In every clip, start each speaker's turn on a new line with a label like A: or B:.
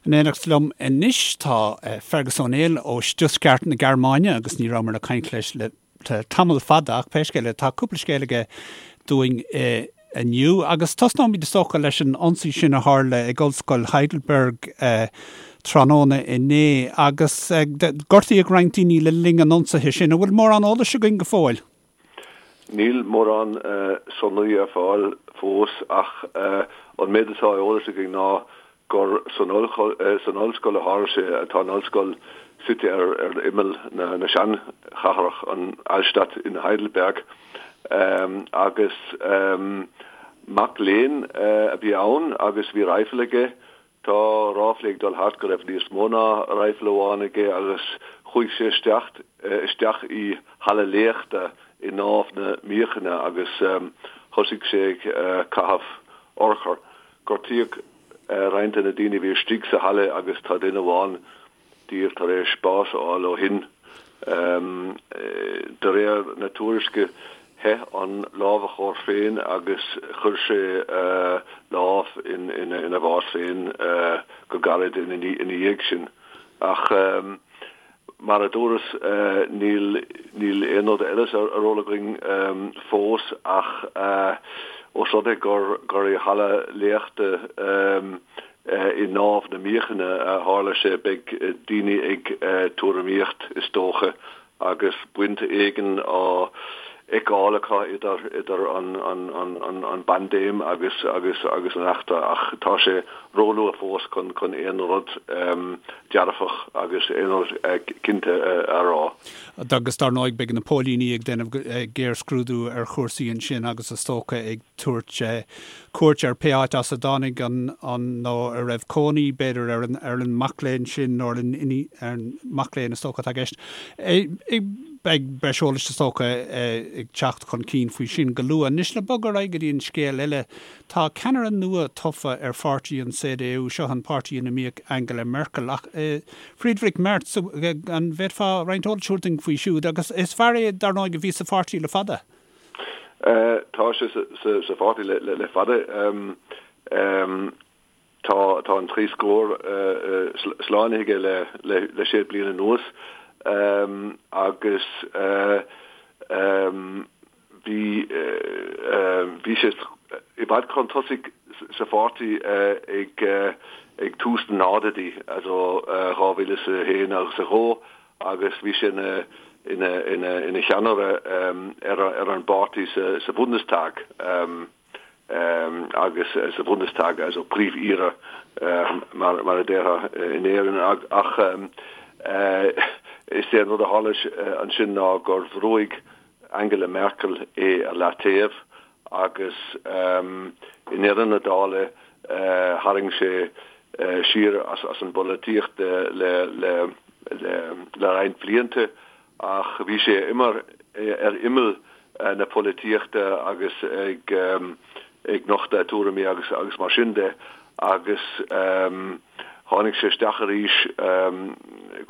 A: In éineacht liom anois tá Fergus Ó Néill ó Stuttgart na Gearmáine agus ní rabhamar ag caint leis le tamall fada ach pé scéal é tá cúpla scéal aige dúinn inniu agus tosnóimid is dócha leis an ionsaí sin a tharla ag Ollscoil Heidelberg tráthnóna inné agus gortaíodh roinnt daoine le linn an ionsaithe sin. An bhfuil mórán eolais againn go fóill?
B: Níl mórán sonraí ar fáil fós ach an méid atá ar eolas againn ná gur san ollscoil a tharla sé. Tá an ollscoil suite ar imeall na seanchathrach, an Altstadt in Heidelberg, agus mac léinn a bhí ann agus bhí raidhfil aige. Tá ráflaí ag dul thart go raibh níos mó ná raidhfil amháin aige agus chuaigh sé isteach isteach i halla léachta i nDámh na Míochaine agus thosaigh sé ag caitheamh urchar. Gortaíodh roinnt de na daoine a bhí istigh sa halla agus tá duine amháin díobh tar éis bás a fháil ó shin. De réir na tuairisce, theith an lámhachóir féin agus chuir sé lámh ina bhás féin go gairid ina dhiaidh sin. Ach mar a dúras, níl níl aon rud eile ar eolas againn fós ach ós rud é gur gur i halla léachta I nDámh na Míochaine a tharla sé. Beidh daoine ag tuairimíocht, is dócha, agus baint éigin á fheiceáil acu idir idir an an bpaindéim agus agus agus an eachtra ach tá sé róluath fós chun chun aon rud dearfach agus aon rud cinnte a rá.
A: Agus dar ndóigh beidh na póilíní ag déanamh géarscrúdú ar chúrsaí ansin agus is dócha ag tabhairt cuairt ar pé áit as a dtáinig an, an, nó a raibh cónaí, b'fhéidir, ar an, ar an mac léinn sin nó ar an, ar an mac léinn is dócha atá i gceist. Beidh breis eolais is dócha ag teacht chun cinn faoi sin go luath. Anois le bogadh ar aghaidh go dtí an scéal eile, tá ceannaire nua tofa ar pháirtí an CDU, seo an páirtí ina mbíodh Angela Merkel, ach Friedrich Merz, an bhféadfá roinnt eolais a thabhairt dúinn faoi siúd? Agus is fear é, dar ndóigh, a bhí sa pháirtí le fada.
B: Tá sé sa pháirtí le fada. Tá an trí scór slánaithe aige le sé bliana anuas agus bhí bhí sé i bhfad chun tosaigh sa pháirtí ag tús na nóchaidí, also 2001 agus 2. agus bhí sé ina ina ina ina cheannaire ar ar an bpáirtí sa sa Bundestag agus sa Bundestag also Príomh-Aire mar mar a déarfá in Éirinn ach is é an rud a tharla ansin ná gur bhrúigh Angela Merkel é ar leataobh agus i ndeireadh na dála tharraing sé siar as an bpolaitíocht le roinnt blianta ach bhí sé ar imeall na polaitíochta agus ag nochtadh a tuairimí agus mar sin de agus tháinig sé isteach arís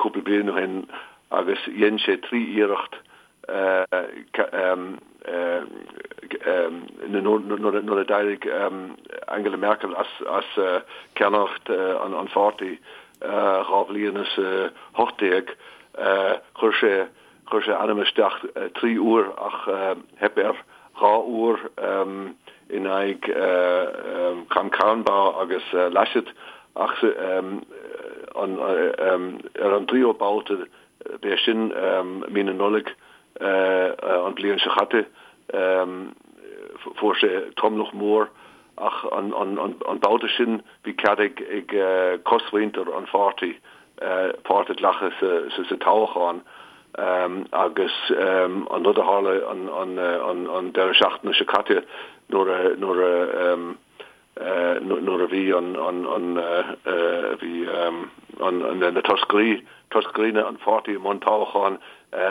B: cúpla bliain ó shin agus dhein sé 3 iarracht nuair a d'éirigh Angela Merkel as ceannaireacht an pháirtí 2018, chuir sé chuir sé a ainm isteach 3 uair ach theip air 2 uair in aghaidh Kramp-Karrenbauer agus Laschet ach ar an dtríú babhta B'é sin mí na Nollag an bhliain seo chaite. Fuair sé tromlach mór ach an babhta sin bhí cead ag cosmhuintir an pháirtí páirt a ghlacadh sa toghchán agus an rud a tharla an deireadh seachtaine seo caite nuair a nuair a bhí an bhí na toscairí toscairí an pháirtí i mbun toghcháin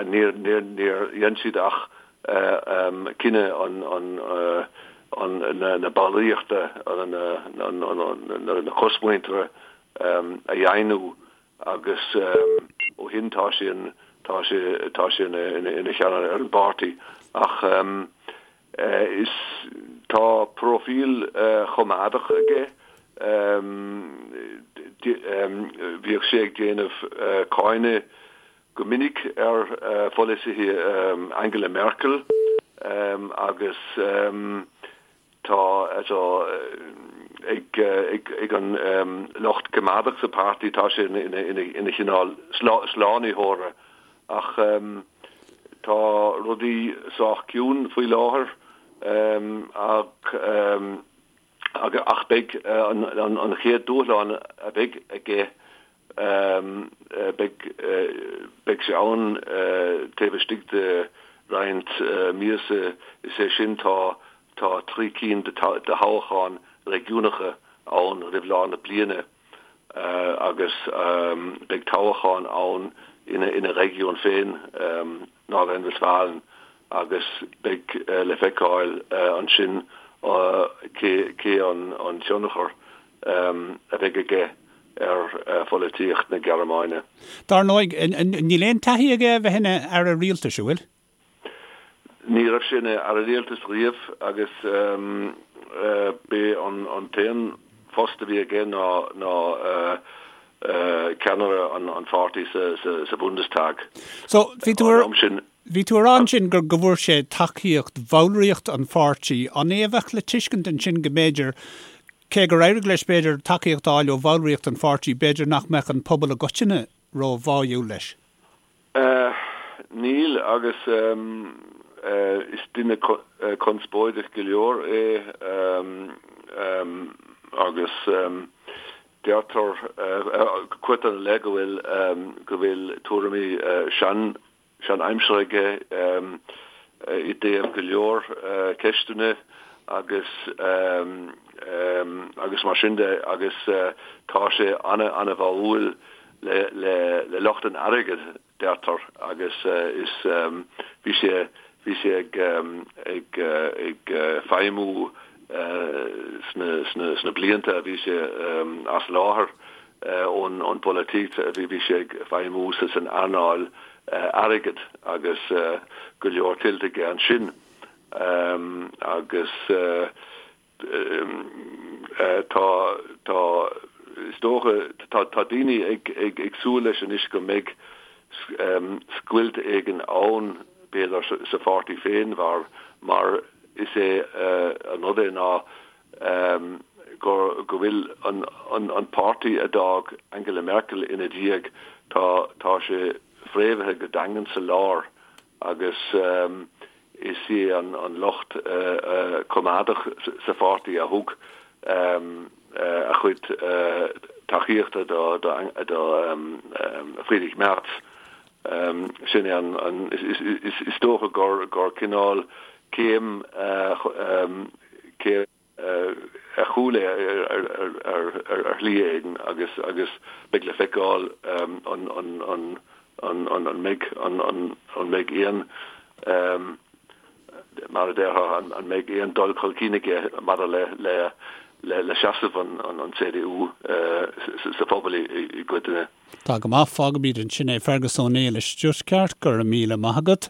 B: níor níor níor dhein siad ach cinneadh an an na ballraíochta na cosmhuintire a dheimhniú agus ó shin tá sé tá sé tá sé ina cheannaire ar an bpáirtí ach Is tá próifíl choimeádach aige. Bhíodh sé ag déanamh cáineadh go minic ar pholasaithe Angela Merkel agus tá ag an lucht coimeádach sa pháirtí, tá sé ina chineál slánaitheora ach tá rudaí sách ciúin faoi láthair ach ach beidh an chéad dúshlán a bheidh aige beidh beidh sé ann taobh istigh de roinnt míosa, is é sin tá tá 3 cinn de thoghcháin réigiúnacha ann roimh lár na bliana agus beidh toghchán ann ina réigiún féin, Nordrhein-Westfalen, agus beidh le feiceáil ansin cé an tionchar a bheidh aige ar pholaitíocht na Gearmáine.
A: Dar ndóigh, níl aon taithí aige a bheith ina aire rialtais, an bhfuil?
B: Ní raibh sé ina aire rialtais riamh agus b'é an t-aon phost a bhí aige ná ceannaire an pháirtí sa Bundestag.
A: So, bhí tú ar, bhí tú ag rá ansin go bhfuair sé tacaíocht bhallraíocht an pháirtí. An é a bheadh le tuiscint ansin go mb'fhéidir, cé gur éirigh leis b'fhéidir tacaíocht a fháil ó bhallraíocht an pháirtí, b'fhéidir nach mbeadh an pobal i gcoitinne ró-bháúil leis?
B: Níl, agus is duine conspóideach go leor é agus deirtear, cuirtear ina leith go bhfuil go bhfuil tuairimí sean sean-aimseartha aige i dtaobh go leor ceisteanna agus agus mar sin de agus tá sé ana-ana-bháúil le le lucht an airgid, deirtear, agus is bhí sé bhí sé ag ag ag feidhmiú sna sna sna blianta a bhí sé as láthair ón ón bpolaitíocht, bhí bhí sé ag feidhmiú sa san earnáil airgid agus go leor tuillte aige ansin agus Tá, tá, is dócha, tá, tá daoine ag, ag, ag súil leis anois go mbeidh scoilt éigin ann, b'fhéidir, sa pháirtí féin mar, mar is é an rud é ná gur, go bhfuil an, an, an páirtí a d'fhág Angela Merkel ina diaidh, tá, tá sé fréamhaithe go daingean sa lár agus Is é an lucht coimeádach sa pháirtí a thug a chuid tacaíochta do Friedrich Merz. Sin é an, is dócha gur cineál céim, céim ar chúl é ar shlí éigin agus agus beidh le feiceáil an an mbeidh an mbeidh aon mar a déarfá an mbeidh aon dul chun cinn aige maidir le le le seasamh an CDU sa phobal i gcoitinne.
A: Tá go maith, fágfaimid ansin é. Fergus Ó Néill i Stuttgart, go raibh míle maith agat.